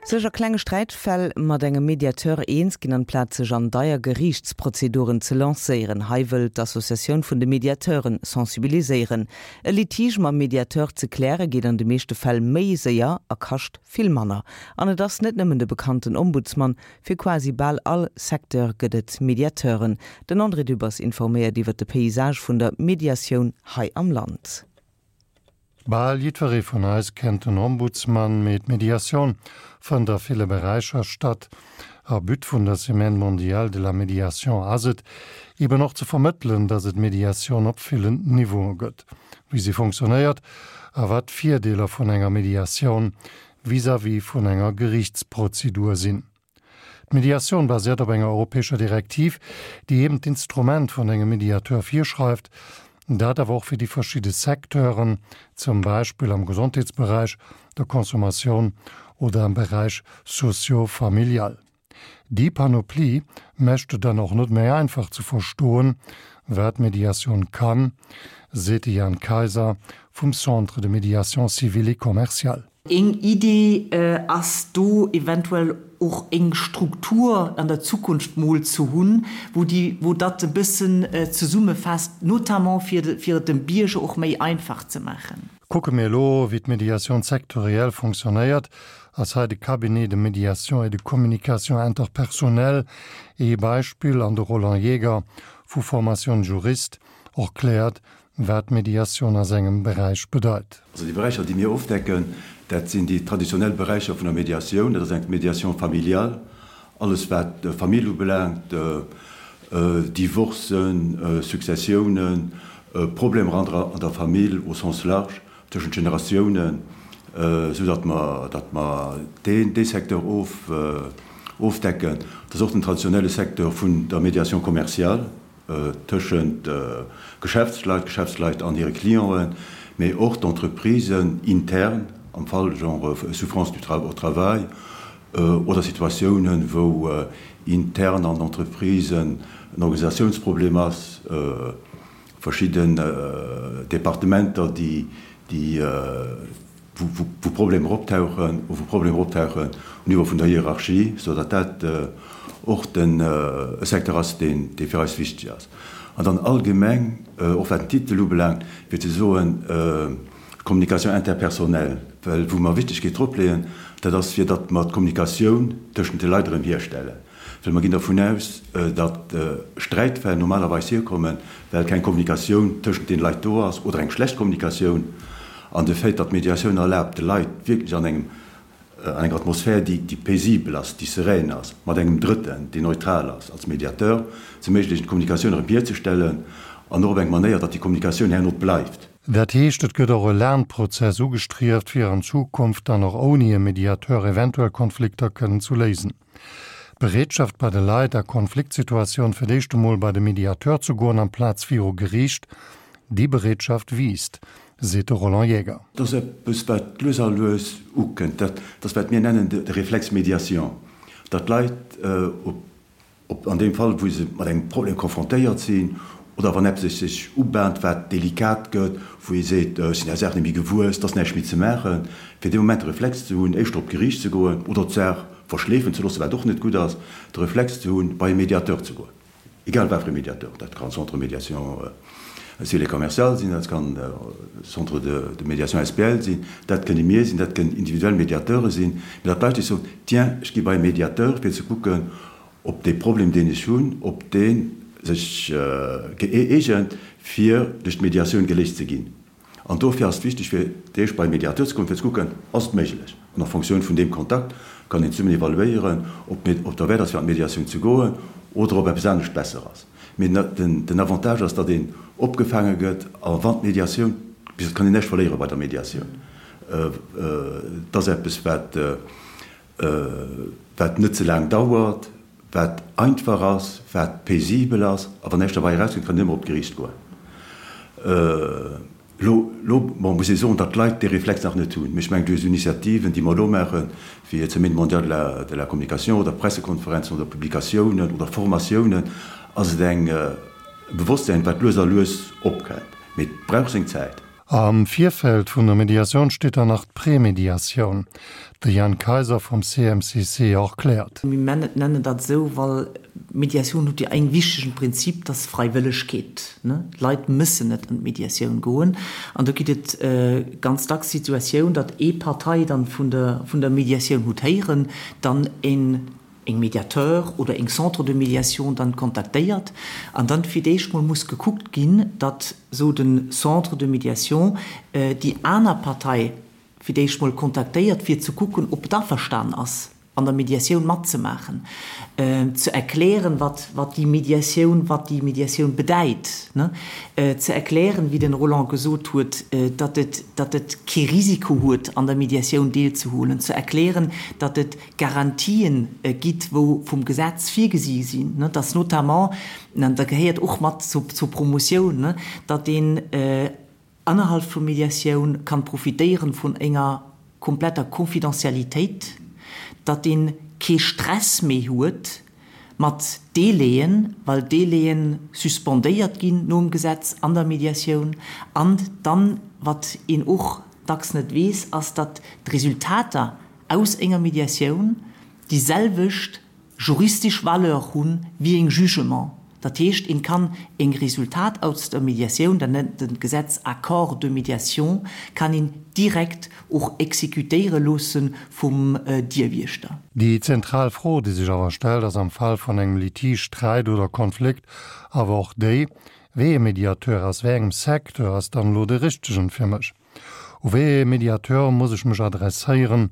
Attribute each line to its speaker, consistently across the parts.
Speaker 1: Sech a klenge Sträitfäll mat engem Mediateur eens ginn, amplaz sech an deier Geriichtsprozeduren ze lancéieren. Hei wëll d'Associatioun vun de Mediateure sensibiliséieren. E Litige mam Mediateur ze kläre geet an de meeschte Fäll méi séier a kascht vill manner. An et ass net nëmmen de bekannten Ombudsman, fir quasi bal all Secteur gëtt et Mediateuren. Den André Dübbers informéiert iwwer de Paysage vun der Mediatioun hei am Land.
Speaker 2: Bal jiddweree vun eis kennt den Ombudsman, mee d'Mediatioun fënnt a ville Beräicher statt. A But vun der Semaine mondiale de la médiation ass et, eben och ze vermëttelen, dass et Mediatioun op villen Niveaue gëtt, wéi se fonctionnéiert a wat d'Virdeeler vun enger Mediatioun vis-à-vis vun enger Geriichtsprozedur sinn. D'Mediatioun basiert op enger europäescher Direktiv, déi eben d'Instrument vun engem Mediateur virschreift, dat awer och fir déi verschidde Secteuren, zum Beispill am Gesondheetsberäich, der Consommatioun oder am Beräich socio-familial. Déi Panoplie mécht et dann och net méi einfach ze verstoen, wat Mediatioun kann, seet de Jan Kayser vum Centre de médiation civile et commerciale.
Speaker 3: Eng Idee ass do eventuell och eng Struktur an der Zukunft mol ze hunn, wou déi, wou dat e bëssen zesummefasst, notamment fir, fir et dem Bierger och méi einfach ze maachen.
Speaker 2: Kucke mir elo, wéi d'Médiation sectorielle fonctionnéiert, ass hei de Cabinet de médiation et de communication interpersonnelle ee Beispill an de Roland Jaeger vu Formation Juriste erkläert, wat Mediatioun a sengem Beräich bedeit.
Speaker 4: Also déi Beräicher, déi mir ofdecken, dat sinn déi traditionell Beräicher vun der Mediatioun. Dat ass eng Médiation familiale, alles wat Famill ubelaangt, Divorcen, Successiounen, Problemer an der Famill au sens large, tëschent Generatiounen, esou datt mer, datt mer deen, dee Secteur of, ofdecken. Dat ass och den traditionelle Secteur vun der Médiation commerciale. tëschent Geschäftsleit, Geschäftsleit an hire Clienten, mee och d'Entreprisen intern am Fall genre Souffrance du au travail oder Situatiounen, wou intern an Entreprisen en Organisatiounsproblem ass, verschidden Departementer, déi wou Problemer optauchen, wou Problemer optauchen um Niveau vun der Hierarchie, sou datt dat och den e Secteur ass, deen, dee fir eis wichteg ass. An dann allgemeng, och wat den Titel ubelaangt, fir ze soen, Communication interpersonnelle, well wou mer Wichtegkeet drop leeën, dat ass fir datt mer d'Kommunikatioun tëschent de Leit erëm hierstellen. Well mer ginn dervun aus, datt Sträitfäll normalerweis hierkommen, well keng Kommunikatioun tëschent den Leit do ass oder eng schlecht Kommunikatioun. An de Fait, datt d'Mediatioun erlaabt, de Leit wierklech an engem, an enger Atmosphär, déi, déi paisibel ass, déi serein ass, mat engem Drëtten, deen neutral ass als Mediateur, ze erméiglechen, d'Kommunikatioun erëm hierzestellen an och op eng Manéier, datt déi Kommunikatioun herno bleift.
Speaker 2: Dat heescht, et gëtt och e Lernprozess ugestrieft, fir an Zukunft dann och ouni e Mediateur eventuell Konflikter kënnen zu léisen. D'Bereetschaft bei de Leit a Konfliktsituatioun fir d'éischt emol bei de Mediateur ze goen amplaz viru Geriicht, déi Bereetschaft wiisst, seet de Roland Jäger.
Speaker 4: Dat ass eppes, wat lues a lues ukënnt. Dat ass, wat mir nennen de Réflexe médiation, datt d'Leit op Ob an deem Fall, wou se mat engem Problem confrontéiert sinn, oder wann eppes sech ubahnt, wat delikat gëtt, wou ee seet, ech sinn där Saach net méi gewuess, et ass näischt méi ze maachen, fir dee Moment de Reflex ze hunn, éischter op d'Geriicht ze goen oder d'Saach verschleefen ze loossen, wat och net gutt ass, de Reflex ze hunn, bei e Mediateur ze goen, egal wat fir e Mediateur, dat kann Centre de médiation civile et commerciale sinn, dat kann Centre de médiation SPL sinn, dat kënne mir sinn, dat kënnen individuell Mediateure sinn, mee datt d'Leit sech soen, tiens, ech gi bei e Mediateur, fir ze kucken, ob dee Problem, deen ech hunn, ob dee sech gëeegent, fir duerch d'Mediatioun geléist ze ginn. An dofir ass et wichteg, fir d'éischt bei e Mediateur ze kommen, fir ze kucken, ass et méiglech? An a Fonctioun vun deem Kontakt kann een zesummen evaluéieren, ob et derwäert ass, fir an d'Mediatioun ze goen oder ob eppes anescht besser ass. Mee den Avantage ass, datt een opgefaange gëtt a wann d'Mediatioun, bis et kann een näischt verléiere bei der Mediatioun, et ass eppes, wat, wat net ze laang dauert, wat einfach ass, wat paisibel ass, a wann näischt derbei erauskënnt, kann een ëmmer op d'Geriicht goen. Elo, elo, bon, muss ee soen, datt d'Leit dee Reflex nach net hunn. Mee ech mengen, duerch esou Initiativen, déi mer elo maachen, wéi d'Semaine mondiale de la, de la communication oder Pressekonferenzen oder Publikatiounen oder Formatiounen, ass et eng, e Bewosstsäin, wat lues a lues opkënnt. Mee et brauch seng Zäit.
Speaker 2: Am Virfeld vun der Mediatioun steet dann nach d'Prémediatioun. De Jan Kayser vum CMCC erkläert.
Speaker 3: Mir nennen dat esou, well d'Mediatioun huet jo eng wichtegen Prinzip, dat ass Freiwëllegkeet. D'Leit mëssen net an d'Mediatioun goen. An do gitt et ganz dacks Situatioun, datt ee Partei dann vun der vun der Mediatioun hutt héieren, dann een eng Médiateur oder eng Centre de médiation dann kontaktéiert an dann fir d'éischt mol muss gekuckt ginn, datt sou den Centre de médiation déi aner Partei fir d'éischt mol kontaktéiert fir ze kucken, ob et averstan ass an der Médiatioun matzemaachen, ze erklären, wat wat déi Médiatioun wat déi Médiatioun bedäit, ne, ze erklären, wéi den Roland gesot huet, datt et datt et kee Risiko huet an der Médiatioun deelzehuelen, ze erklären, datt et Garantien gitt, wou vum Gesetz virgesi sinn, dass notamment, an dat gehéiert och mat zur Promotioun, datt een innerhalb vum Mediatioun kann profitéieren vun enger kompletter Confidentialitéit, datt een kee Stress méi huet mat Délaien, well Délaien suspendéiert ginn nom Gesetz an der Mediatioun. An dann, wat een och dacks net weess, ass, datt d'Resultater aus enger Mediatioun déi selwecht juristesch Valeur hunn wéi eng Jugement. Dat heescht, een kann eng Resultat aus der Mediatioun, dat nennt den Gesetz Accord de médiation, kann een direkt och exécutéiere loosse vum Dierwiechter.
Speaker 2: Déi zentral Fro, déi sech awer stellt, ass am Fall vun engem Litige, Sträit oder Konflikt awer och déi, Wéi ee Mediateur aus wéi engem Secteur ass dann elo de richtegen fir mech? U wéi ee Mediateur muss ech mech adresséieren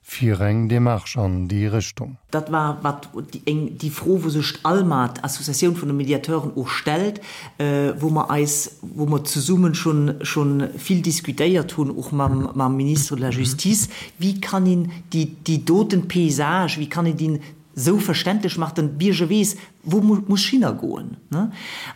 Speaker 2: fir eng Démarche an déi Richtung?
Speaker 3: Dat war wat eng déi Fro, wou sech d'ALMA, d'Associatioun vun de Mediateuren, och stellt, wou mer eis, wou mer zesummen schonn schonn vill diskutéiert hunn, och mam mam Ministre de la Justice, Wéi kann een déi déi doten Paysage, wéi kann een deen esou verständlech maachen, datt de Bierger weess, wou muss ech hinnergoen.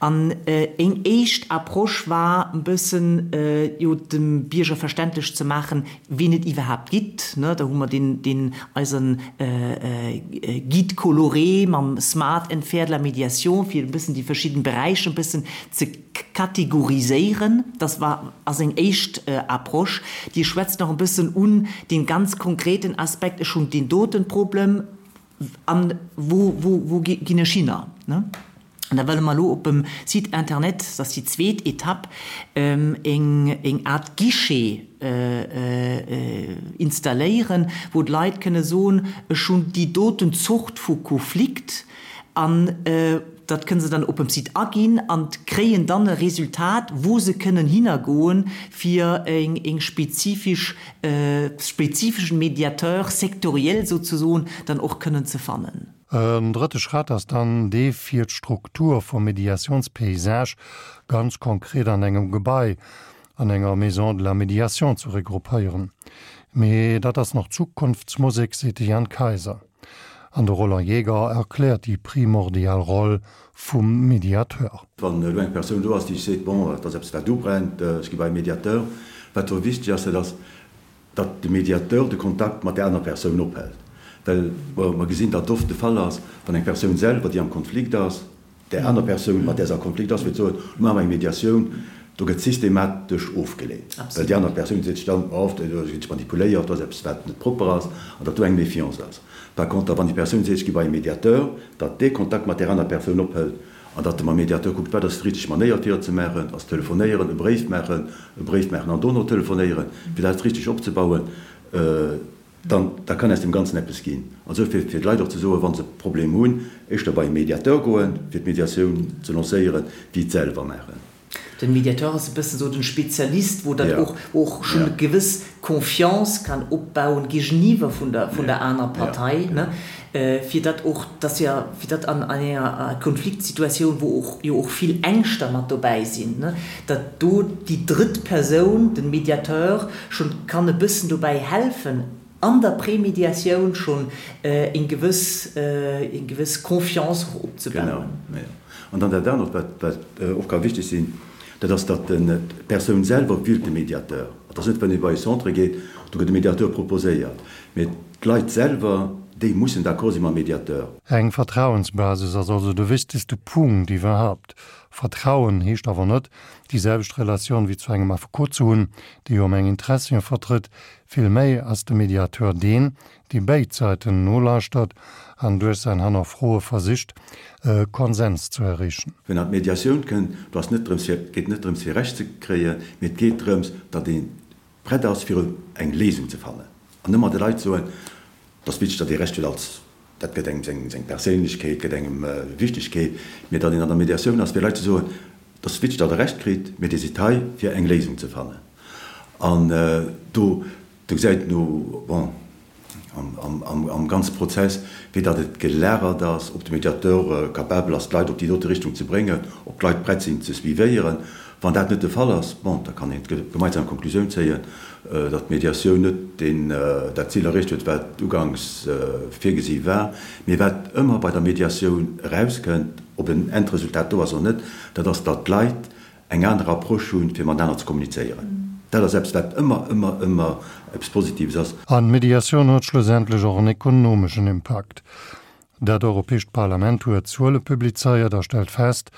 Speaker 3: An eng éischt Approche war e bëssen, jo dem Bierger verständlech ze maachen, wien et iwwerhaapt gitt. Da hu mer deen eisen Guide coloré mam Smart and Fair de la Médiation, fir e bëssen déi verschidden Beräicher e bëssen ze kategoriséieren. Dat war, ass eng éischt Approche. Dir schwätzt nach e bëssen un dee ganz konkreten Aspekt, ech hunn deen doten Problem, an wou, wou, wou ginn ech hinner? An da wëlle mer elo op dem Site internet, dat ass déi zweet Etapp, eng, eng Art Guichet installéieren, wou d'Leit kënne soen, ech hunn déi doten Zort vu Konflikt an dat kënne se dann op dem Site aginn an kréien dann e Resultat, wou se kënnen hinnergoen, fir eng, eng spezifesch spezifeschen Médiateur sectoriel souzesoen dann och kënnen ze fannen.
Speaker 2: En drëtte Schratt ass dann dee fir d'Struktur vum Médiationspaysage ganz konkret an engem Gebai, an enger Maison de la Médiation ze regroupéieren. Mee dat ass nach Zukunftsmusek, seet de Jan Kayser. An de Roland Jaeger erkläert déi primordial Roll vum Mediateur.
Speaker 4: Wann elo eng Persoun do ass, déi seet, bon, et ass eppes wat ubrennt, ech gi bei e Mediateur, wat do wichteg ass, dat ass, datt de Mediateur de Kontakt mat där aner Persoun ophält. Well mer gesinn, datt oft de Fall ass, wann eng Persoun selwer, déi am Konflikt ass, där aner Persoun, mat där se a Konflikt ass, wëllt soen, elo maache mer eng Mediatioun, do gëtt systematesch ofgeleent, well déi aner Persoun seet sech dann, oh, do ginn ech manipuléiert, do ass eppes, wat net propper ass, an datt do eng Méfiance ass. Par contre, wann déi Persoun seet, ech gi bei e Mediateur, datt dee Kontakt mat där aner Persoun ophëlt an datt e mam Mediateur kuckt, wat ass déi richteg Manéier fir et ze maachen, ass telefonéieren, e Bréif maachen, e Bréif maachen an dono telefonéieren, fir dat richteg opzebauen, dann da kann aus deem Ganzen eppes ginn. Also fir fir d'Leit och ze soen, wa se e Problem hunn, éischter bei e Mediateur goen, fir d'Mediatioun ze lancéieren, wéi et selwer maachen.
Speaker 3: Den Mediateur ass e bëssen esou den Spezialist, wou dat och, wou och schonn e gewëss Confiance kann opbauen géigeniwwer vun der, vun der aner Partei, ne, fir datt och, dass jo, fir datt an enger Konfliktsituatioun, wou och jo och vill Ängschter mat dobäi sinn, ne, datt do déi drëtt Persoun, den Mediateur, schonn kann e bëssen dobäi helfen, an der Prémédiatioun schonn eng gewëss, eng gewëss Confiance och opzebauen.
Speaker 4: Genau, jo. An dann dat anert, wat, wat och ka wichteg sinn, dat ass, datt d'Persoun selwer wielt de Mediateur. Et ass net, wann ee bei e Centre geet, do gëtt e Mediateur proposéiert, mee d'Leit selwer. déi mussen d'accord si mam Mediateur.
Speaker 2: Eng Vertrauensbasis ass also de wichtegste Punkt iwwerhaupt. Vertrauen heescht awer net, déi selwecht Relatioun wéi zu engem Affekot ze hunn, dee jo meng Interessien vertrëtt. Vill méi ass de Mediateur deen, dee béid Säiten nolauschtert an duerch säin Hannerfroe versicht, e Konsens ze erreechen.
Speaker 4: Wenn an d'Mediatioun kënnt, do ass net drëms fir, et geet net drëms fir Recht ze kréien, mee et geet drëms, datt ee prett ass fir eng Léisung ze fannen. An ëmmer de Leit soen, et ass wichteg, datt ee Recht huet als, dat gëtt engem seng, seng Perséinlechkeet, gëtt engem Wichtegkeet, mee datt een an der Mediatioun ass fir Leit ze soen, et ass wichteg, datt Der Recht kritt, mee Dir sidd hei fir eng Léisung ze fannen. An do Do gesäit een o, bon, am ganze Prozess, wéi datt et gelagert ass, ob de Mediateur capabel ass, d'Leit op déi dote Richtung ze bréngen, ob d'Leit prett sinn ze suivéieren. Wann dat net de Fall ass, bon, da kann een d'gemeinsam Konklusioun zéien, datt d'Mediatioun net deen, dat Zil erreecht huet, wat uganks virgesi war. Mee wat ëmmer bei der Mediatioun erauskënnt, ob en Endresultat do ass oder net, dat ass, datt d'Leit eng aner Approche hunn, fir matenaner ze kommunizéieren. Dat ass eppes, wat ëmmer, ëmmer, ëmmer eppes Positives ass.
Speaker 2: An d'Mediatioun huet schlussendlech och en ekonomeschen Impakt. Dat Europäescht Parlament huet Zuele publizéiert a stellt fest,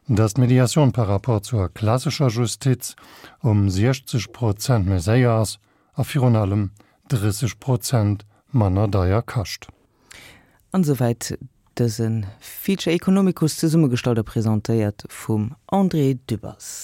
Speaker 2: datt d'Mediatioun par rapport zur klassescher Justiz ëm 60 Prozent méi séier ass a virun allem 30 Prozent manner deier kascht.
Speaker 1: An esouwäit dëse Feature Economicus, zesummegestallt a presentéiert vum André Dübbers.